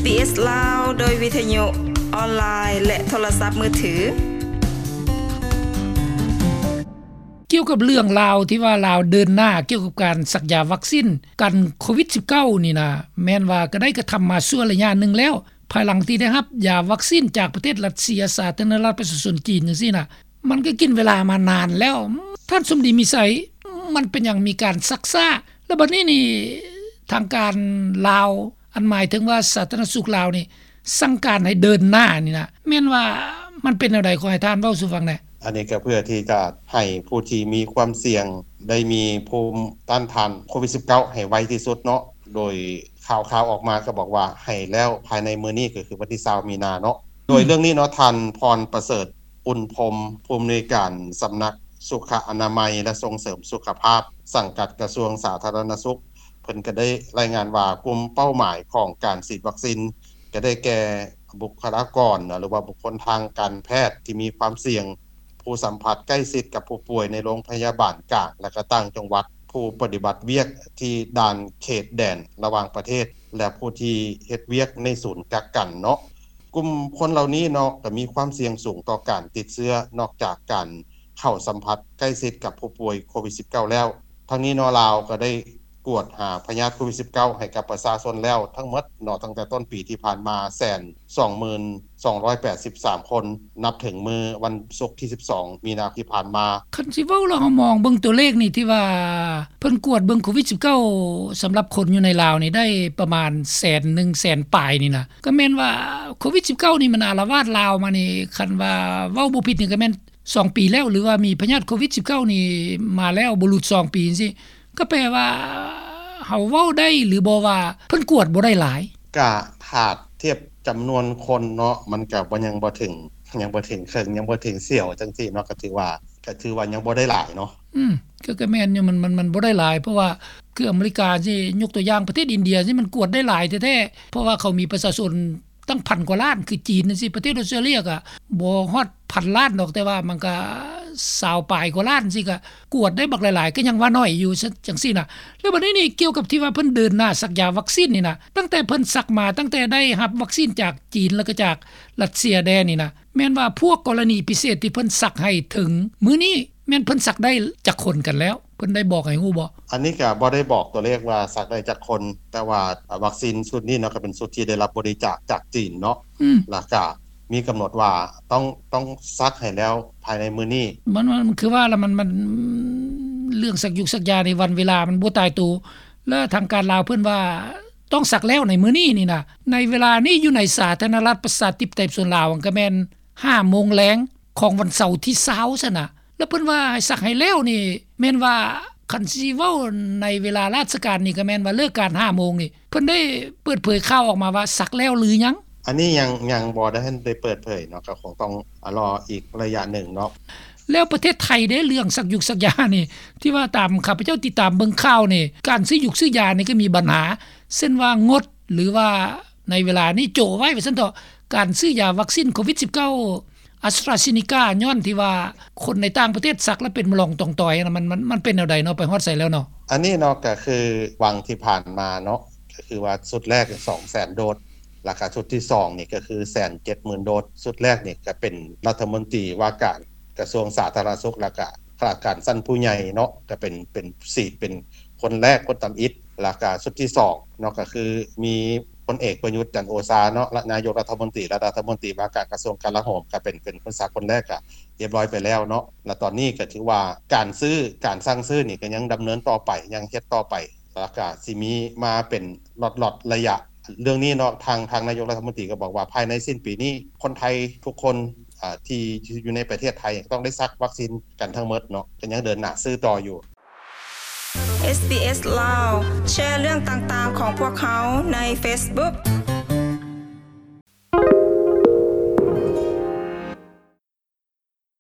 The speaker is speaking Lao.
ເອສ ລາວ ໂດຍວິທະຍຸອອນລາຍ ແລະ ໂທລະສັບມືຖື. ກ່ຽວກັບເລື່ອງລາວທີ່ວ່າລາວເດີນໜ້າກ່ຽວກັບການສັກຢາວັກຊິນກັນໂຄວິດສິບເກົ້ານີ້ນະ ແມ່ນວ່າກໍໄດ້ກະທຳມາຊົ່ວໄລຍະໜຶ່ງແລ້ວ ພາຍຫຼັງທີ່ໄດ້ຮັບຢາວັກຊິນຈາກປະເທດຣັດເຊຍ ສາທາລະນະລັດປະຊາຊົນຈີນຈັ່ງຊີ້ນະ ມັນກໍກິນເວລາມານານແລ້ວ. ທ່ານສົມດີ ມີໄຊ ມັນເປັນຫຍັງມີການຊັກຊ້າ? ແລ້ວບັດນີ້ນີ້ ທາງການລາວ ອັນໝາຍເຖິງວ່າສາທາລະນະສຸກລາວນີ້ ສັ່ງການໃຫ້ເດີນໜ້ານີ້ນະ ແມ່ນວ່າມັນເປັນແນວໃດ? ຂໍໃຫ້ທ່ານເວົ້າສູ່ຟັງແດ່. ອັນນີ້ກໍເພື່ອທີ່ຈະໃຫ້ຜູ້ທີ່ມີຄວາມສ່ຽງ ໄດ້ມີພູມຕ້ານທານໂຄວິດສິບເກົ້າໃຫ້ໄວທີ່ສຸດເນາະ ໂດຍຂ່າວໆອອກມາກໍບອກວ່າໃຫ້ແລ້ວພາຍໃນມື້ນີ້ ກໍຄືວັນທີຊາວມີນາເນາະ. ໂດຍເລື່ອງນີ້ເນາະ ທ່ານ ພອນປະເສີດ ອຸ່ນພົມ ຜູ້ອຳນວຍການສຳນັກສຸຂະອະນາໄມ ແລະ ສົ່ງເສີມສຸຂະພາບ ສັງກັດກະຊວງສາທາລະນະສຸກ ເພິ່ນກໍໄດ້ລາຍງານວ່າ ກຸ່ມເປົ້າໝາຍຂອງການສີດວັກຊິນ ກໍໄດ້ແກ່ບຸກຄະລາກອນ ຫຼືວ່າບຸກຄົນທາງການແພດທີ່ມີຄວາມສ່ຽງ, ຜູ້ສຳຜັດໃກ້ຊິດກັບຜູ້ປ່ວຍໃນໂລງພະຍາບານກາງ ແລະ ກໍຕ່າງຈັງຫວັດ, ຜູ້ປະຕິບັດວຽກທີ່ດ່ານເຂດແດນລະຫວ່າງປະເທດ ແລະ ຜູ້ທີ່ເຮັດວຽກໃນສູນກັກກັນເນາະ. ກຸ່ມຄົນເຫຼົ່ານີ້ເນາະ ກໍມີຄວາມສ່ຽງສູງຕໍ່ການຕິດເຊື້ອ ນອກຈາກການເຂົ້າສຳຜັດໃກ້ຊິດກັບຜູ້ປ່ວຍໂຄວິດສິບເກົ້າແລ້ວ. ທັງນີ້ເນາະ ລາວກໍໄດ້ກວດຫາພະຍາດໂຄວິດສິບເກົ້າໃຫ້ກັບປະຊາຊົນແລ້ວທັງໝົດເນາະ ຕັ້ງແຕ່ຕົ້ນປີທີ່ຜ່ານມາ ແສນສອງໝື່ນສອງຮ້ອຍແປດສິບສາມຄົນ ນັບເຖິງມື້ວັນສຸກທີສິບສອງມີນາທີ່ຜ່ານມາ. ຄັນຊິເວົ້າແລ້ວ ເຮົາມອງເບິ່ງຕົວເລກນີ້ ທີ່ວ່າເພິ່ນກວດເບິ່ງໂຄວິດສິບເກົ້າ ສຳລັບຄົນຢູ່ໃນລາວນີ້ ໄດ້ປະມານແສນໜຶ່ງ ແສນປາຍນີ້ນະ ກໍແມ່ນວ່າໂຄວິດສິບເກົ້ານີ້ມັນອາລະວາດລາວມານີ້ ຄັນວ່າເວົ້າບໍ່ຜິດນີ້ ກໍແມ່ນສອງປີແລ້ວ ຫຼືວ່າມີພະຍາດໂຄວິດສິບເກົ້ານີ້ມາແລ້ວບໍ່ຫຼຸດສອງປີຈັ່ງຊີ້ ກໍແປວ່າເຮົາເວົ້າໄດ້ຫຼືບໍ່ວ່າເພິ່ນກວດບໍ່ໄດ້ຫຼາຍ? ກະຖ້າທຽບຈຳນວນຄົນເນາະ ມັນກະບໍ່ ຍັງບໍ່ເຖິງ ຍັງບໍ່ເຖິງເຄິ່ງ ຍັງບໍ່ເຖິງສ່ຽວຈັ່ງຊີ້ເນາະ ກະຖືວ່າ ກະຖືວ່າຍັງບໍ່ໄດ້ຫຼາຍເນາະ. ອືມ ກໍ ກໍແມ່ນຢູ່ ມັນ ມັນ ມັນບໍ່ໄດ້ຫຼາຍ ເພາະວ່າຄືອາເມລິກາຊີ້ ຍົກຕົວຢ່າງປະເທດອິນເດຍຊີ້ ມັນກວດໄດ້ຫຼາຍແທ້ໆ ເພາະວ່າເຂົາມີປະຊາຊົນ ຕັ້ງພັນກວ່າລ້ານ ຄືຈີນຈັ່ງຊີ້ ປະເທດອອສເຕຣເລຍກໍບໍ່ຮອດພັນລ້ານດອກ ແຕ່ວ່າມັນກໍຊາວປາຍກວ່າລ້ານຊີ້ ກໍກວດໄດ້ບັກຫຼາຍໆ ກໍຍັງວ່າໜ້ອຍຢູ່ ຈັ່ງຊີ້ນະ. ແລ້ວບັດນີ້ນີ້ ກ່ຽວກັບທີ່ວ່າເພິ່ນເດີນໜ້າສັກຢາວັກຊິນນີ້ນະ ຕັ້ງແຕ່ເພິ່ນສັກມາ ຕັ້ງແຕ່ໄດ້ຮັບວັກຊິນຈາກຈີນ ແລ້ວກໍຈາກຣັດເຊຍແດ່ນີ້ນະ ແມ່ນວ່າພວກກໍລະນີພິເສດທີ່ເພິ່ນສັກໃຫ້ເຖິງມື້ນີ້ ແມ່ນເພິ່ນສັກໄດ້ຈັກຄົນກັນແລ້ວ? ເພິ່ນໄດ້ບອກໃຫ້ຮູ້ບໍ່? ອັນນີ້ກໍບໍ່ໄດ້ບອກຕົວເລກວ່າສັກໄດ້ຈັກຄົນ ແຕ່ວ່າວັກຊິນຊຸດນີ້ເນາະ ກໍເປັນຊຸດທີ່ໄດ້ຮັບບໍລິຈາກຈາກຈີນເນາະ ອືມ ແລ້ວກໍມີກຳນົດວ່າຕ້ອງ ຕ້ອງສັກໃຫ້ແລ້ວພາຍໃນມື້ນີ້. ມັນ ມັນ ມັນຄືວ່າລະ ມັນ ມັນ ເລື່ອງສັກຢູກສັກຢາໃນວັນເວລາມັນບໍ່ຕາຍໂຕ ແລະ ທາງການລາວເພິ່ນວ່າຕ້ອງສັກແລ້ວໃນມື້ນີ້ນີ້ນະ. ໃນເວລານີ້ຢູ່ໃນສາທາລະນະລັດປະຊາທິປະໄຕປະຊາຊົນລາວ ກໍແມ່ນຫ້າໂມງແລງຂອງວັນເສົາທີຊາວຊັ້ນນະ ແລ້ວເພິ່ນວ່າໃຫ້ສັກໃຫ້ແລ້ວນີ້ ແມ່ນວ່າຄັນຊິເວົ້າໃນເວລາລາຊະການນີ້ ກໍແມ່ນວ່າເລີກການຫ້າໂມງນີ້ ເພິ່ນໄດ້ເປີດເຜີຍຂ່າວອອກມາວ່າສັກແລ້ວຫຼືຍັງ? ອັນນີ້ຍັງ ຍັງບໍ່ໄດ້ ໄດ້ເປີດເຜີຍເນາະ ກໍຄົງຕ້ອງລໍອີກໄລຍະໜຶ່ງເນາະ. ແລ້ວປະເທດໄທເດ້ ເລື່ອງສັກຢູກສັກຢານີ້ ທີ່ວ່າຕາມຂ້າພະເຈົ້າຕິດຕາມເບິ່ງຂ່າວນີ້ ການຊື້ຢູກຊື້ຢານີ້ກໍມີບັນຫາ ເຊັ່ນວ່າງົດ ຫຼືວ່າໃນເວລານີ້ໂຈະໄວ້ວ່າຊັ້ນເຖາະ ການຊື້ຢາວັກຊິນໂຄວິດສິບເກົ້າ ອາສຕຣາເຊນີກາ ຍ້ອນທີ່ວ່າຄົນໃນຕ່າງປະເທດສັກແລ້ວເປັນມະລອງຕອງຕອຍນະ ມັນ ມັນ ມັນເປັນແນວໃດເນາະ ໄປຮອດໃສແລ້ວເນາະ? ອັນນີ້ເນາະ ກໍຄືຫວ່າງທີ່ຜ່ານມາເນາະ ກໍຄືວ່າຊຸດແລກສອງແສນໂດສ ແລ້ວກໍຊຸດທີສອງນີ້ກໍຄືແສນເຈັດໝື່ນໂດສ. ຊຸດແລກນີ້ກໍເປັນລັດຖະມົນຕີວ່າການກະຊວງສາທາລະນະສຸກ ແລ້ວກໍຂ້າລາຊະການຊັ້ນຜູ້ໃຫຍ່ເນາະ ກໍເປັນ ເປັນ ສີດເປັນຄົນແລກ ຄົນທຳອິດ. ແລ້ວກໍຊຸດທີສອງເນາະ ກໍຄືມີພົນເອກປະຍຸດ ຈັນໂອຊາເນາະ ນາຍົກລັດຖະມົນຕີ ແລະ ລັດຖະມົນຕີວ່າການກະຊວງກະລາໂຫມ ກໍເປັນ ເປັນຄົນສັກຄົນແລກ ກໍຮຽບຮ້ອຍໄປແລ້ວເນາະ. ແລ້ວຕອນນີ້ກໍຖືວ່າການຊື້ ການສັ່ງຊື້ນີ້ກໍຍັງດຳເນີນຕໍ່ໄປ ຍັງເຮັດຕໍ່ໄປ ແລ້ວກະຊິມີມາເປັນລັອດໆໄລຍະ. ເລື່ອງນີ້ເນາະ ທາງ ທາງນາຍົກລັດຖະມົນຕີກໍບອກວ່າ ພາຍໃນສິ້ນປີນີ້ ຄົນໄທທຸກຄົນ ອາ ທີ່ຢູ່ໃນປະເທດໄທຕ້ອງໄດ້ສັກວັກຊິນກັນທັງໝົດເນາະ ກໍຍັງເດີນໜ້າຊື້ຕໍ່ຢູ່. ເອສບີເອສ ລາວ ແຊເລື່ອງຕ່າງໆຂອງພວກເຮົາໃນເຟສບຸກ